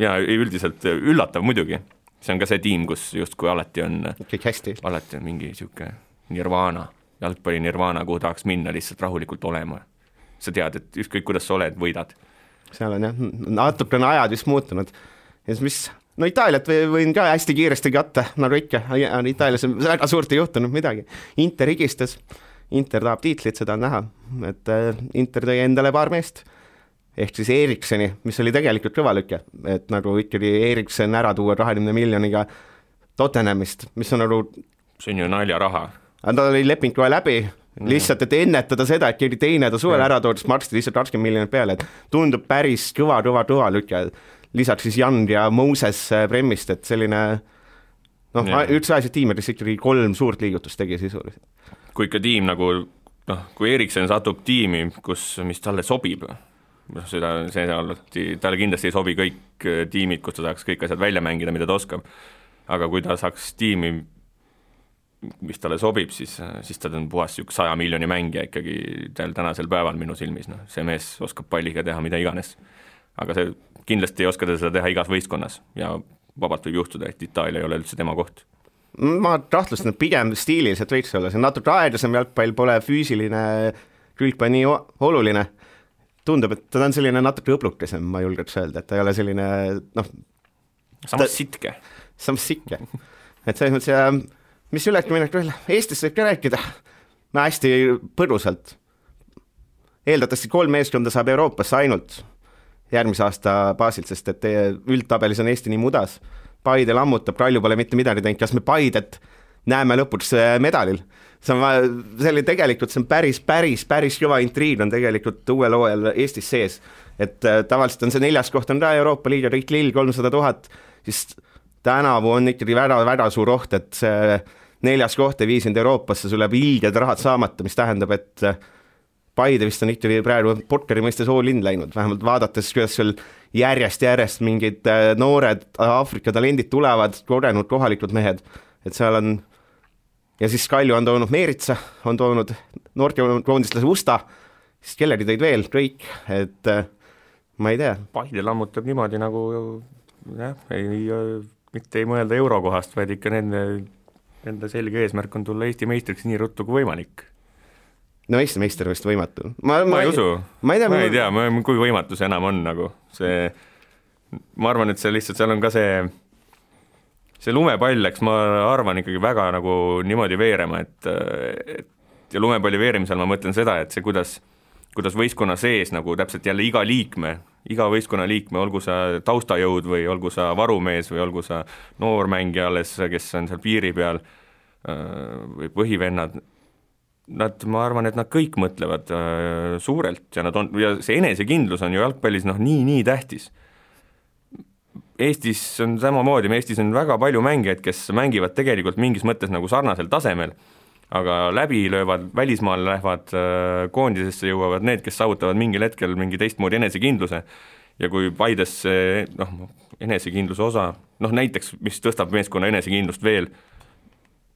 ja üldiselt üllatav muidugi. See on ka see tiim, kus justkui alati on mingi siuke nirvana, jalgpalli nirvana, kuhu tahaks minna lihtsalt rahulikult olema. sa tead, et ükskõik kuidas sa oled, võidad. Seal on jah, natukene ajad vist muutunud. Ja mis, no Itaaliat võin ka hästi kiiresti katta, nagu ikka, Itaalias on väga suurt ei juhtunud midagi. Inter higistas, Inter tahab tiitlit, seda on näha, et Inter tõi endale paar meest, ehk siis Erikseni, mis oli tegelikult kõvalüke, et nagu ikkagi Eriksen ära tuua 20 miljoniga Tottenhamist, mis on nagu... See on ju naljaraha. Ta oli leping kohe läbi, lihtsalt, et ennetada seda, et keegi teine ta suvel ära toodis, maksti lihtsalt 20 miljonit peale, et tundub päris kõva lüke. Lisaks siis Jan ja Moses Bremmist, et selline üldse asjad tiimides ikkagi 3 suurt liigutust tegi sisuliselt. Kui ikka tiim nagu, kui Eriksen satub tiimi, mis talle sobib, talle kindlasti ei sobi kõik tiimid, kus ta saaks kõik asjad välja mängida, mida ta oskab, aga kui ta saaks tiimi, mis talle sobib, siis ta on puhas 100 miljoni mängija ikkagi tänasel päeval minu silmis, see mees oskab palliga teha mida iganes, aga see kindlasti ei oska ta seda teha igas võistkonnas ja vabalt võib juhtuda, et Itaalia ei ole üldse tema koht. Ma tahtlustan, et pigem stiiliselt võiks olla, see natuke aeglasem jalgpall, pole füüsiline külg nii oluline. Tundub, et ta on selline natuke õblukesem, ma julgeks öelda, et ta ei ole selline samas sitke. Samas sikke. Et selles mõttes, mis üleki minek veel, Eestis võib ka rääkida hästi põrusalt. Eeldatavasti 3 meeskonda saab Euroopasse ainult järgmise aasta baasilt, sest et üldtabelis on Eesti nii mudas. Paide lammutab, Kalju pole mitte midagi teinud, kas me Paidet näeme lõpuks medalil. See oli tegelikult, see on päris kõva intriig on tegelikult uuel hooajal Eestis sees, et tavaliselt on see 4. koht on ka Euroopa Liiga, Riik Lill 300 000, siis tänavu on ikkagi väga suur oht, et see 4. koht ei viisinud Euroopasse, sul läheb ilged rahad saamata, mis tähendab, et Paide vist on ikkagi praegu Porkeri mõistes all-in läinud, vähemalt vaadates, kuidas sul järjest mingid noored Aafrika talendid tulevad, kogenud kohalikud mehed, et seal on. Ja siis Kalju on toonud Meeritsa, on toonud noortekoondislase Usta, siis kellegi tõid veel, kõik, et ma ei tea. Paide lammutab niimoodi nagu, mitte ei mõelda eurokohast, vaid ikka nende selge eesmärk on tulla Eesti meistriks nii ruttu kui võimalik. No Eesti meister vist võimatu. Ma ei usu, ma ei tea, kui võimatu see enam on nagu. Ma arvan, et see lihtsalt, seal on ka see lumepall läks, ma arvan ikkagi väga nagu niimoodi veerema, et ja lumepalli veerimisel ma mõtlen seda, et see kuidas võistkonna sees nagu täpselt jälle iga võistkonna liikme, olgu sa taustajõud või olgu sa varumees või olgu sa noormängija alles, kes on seal piiri peal või põhivennad, ma arvan, et nad kõik mõtlevad suurelt ja see enesekindlus on ju jalgpallis nii tähtis. Eestis on samamoodi, Eestis on väga palju mängijaid, kes mängivad tegelikult mingis mõttes nagu sarnasel tasemel, aga läbi löövad, välismaal lähevad koondisesse, jõuavad need, kes saavutavad mingil hetkel mingi teistmoodi enesekindluse ja kui Paides enesekindluse osa, näiteks, mis tõstab meeskonna enesekindlust veel,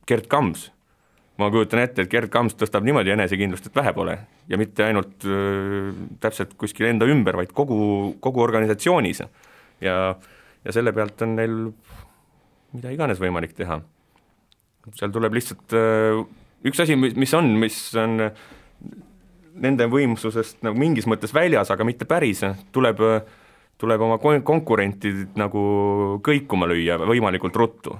Gerd Kams. Ma kujutan ette, et Gerd Kams tõstab niimoodi enesekindlust, et vähe pole ja mitte ainult täpselt kuskil enda ümber, vaid kogu organisatsioonis ja selle pealt on neil mida iganes võimalik teha. Seal tuleb lihtsalt üks asi, mis on nende võimsusest nagu mingis mõttes väljas, aga mitte päris, tuleb oma konkurentid nagu kõikuma lüüa võimalikult ruttu.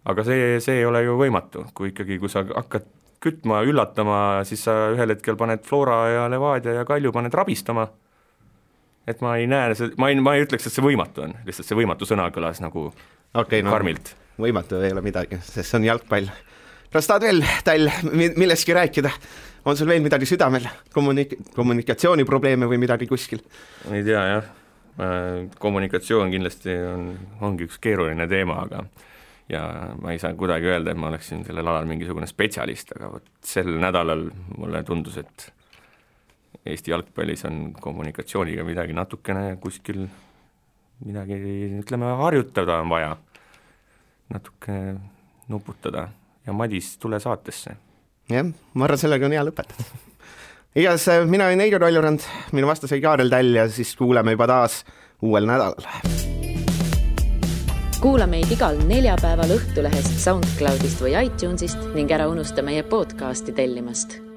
Aga see ei ole ju võimatu, kui sa hakkad kütma, üllatama, siis sa ühel hetkel paned Flora ja Levadia ja Kalju paned rabistama. Et ma ei näe, ma ei ütleks, et see võimatu on, lihtsalt see võimatu sõna kõlas nagu karmilt. Võimatu ei ole midagi, sest see on jalgpall. Kas tahad veel millestki rääkida? On sul veel midagi südamel? Kommunikatsiooniprobleeme või midagi kuskil? Ei tea, jah. Kommunikatsioon kindlasti ongi üks keeruline teema, ja ma ei saa kuidagi öelda, et ma oleksin sellel alal mingisugune spetsialist, aga sel nädalal mulle tundus, et Eesti jalgpallis on kommunikatsiooniga midagi natukene kuskil midagi, ütleme, harjutada on vaja, natuke nuputada ja Madis, tule saatesse. Jah, ma arvan, sellega on hea lõpetada. Igas, mina olen Eido Kaljurand, minu vastas oli Kaarel Täll ja siis kuuleme juba taas uuel nädalal. Kuula meid igal neljapäeval Õhtulehest, SoundCloudist või iTunesist ning ära unusta meie podcasti tellimast.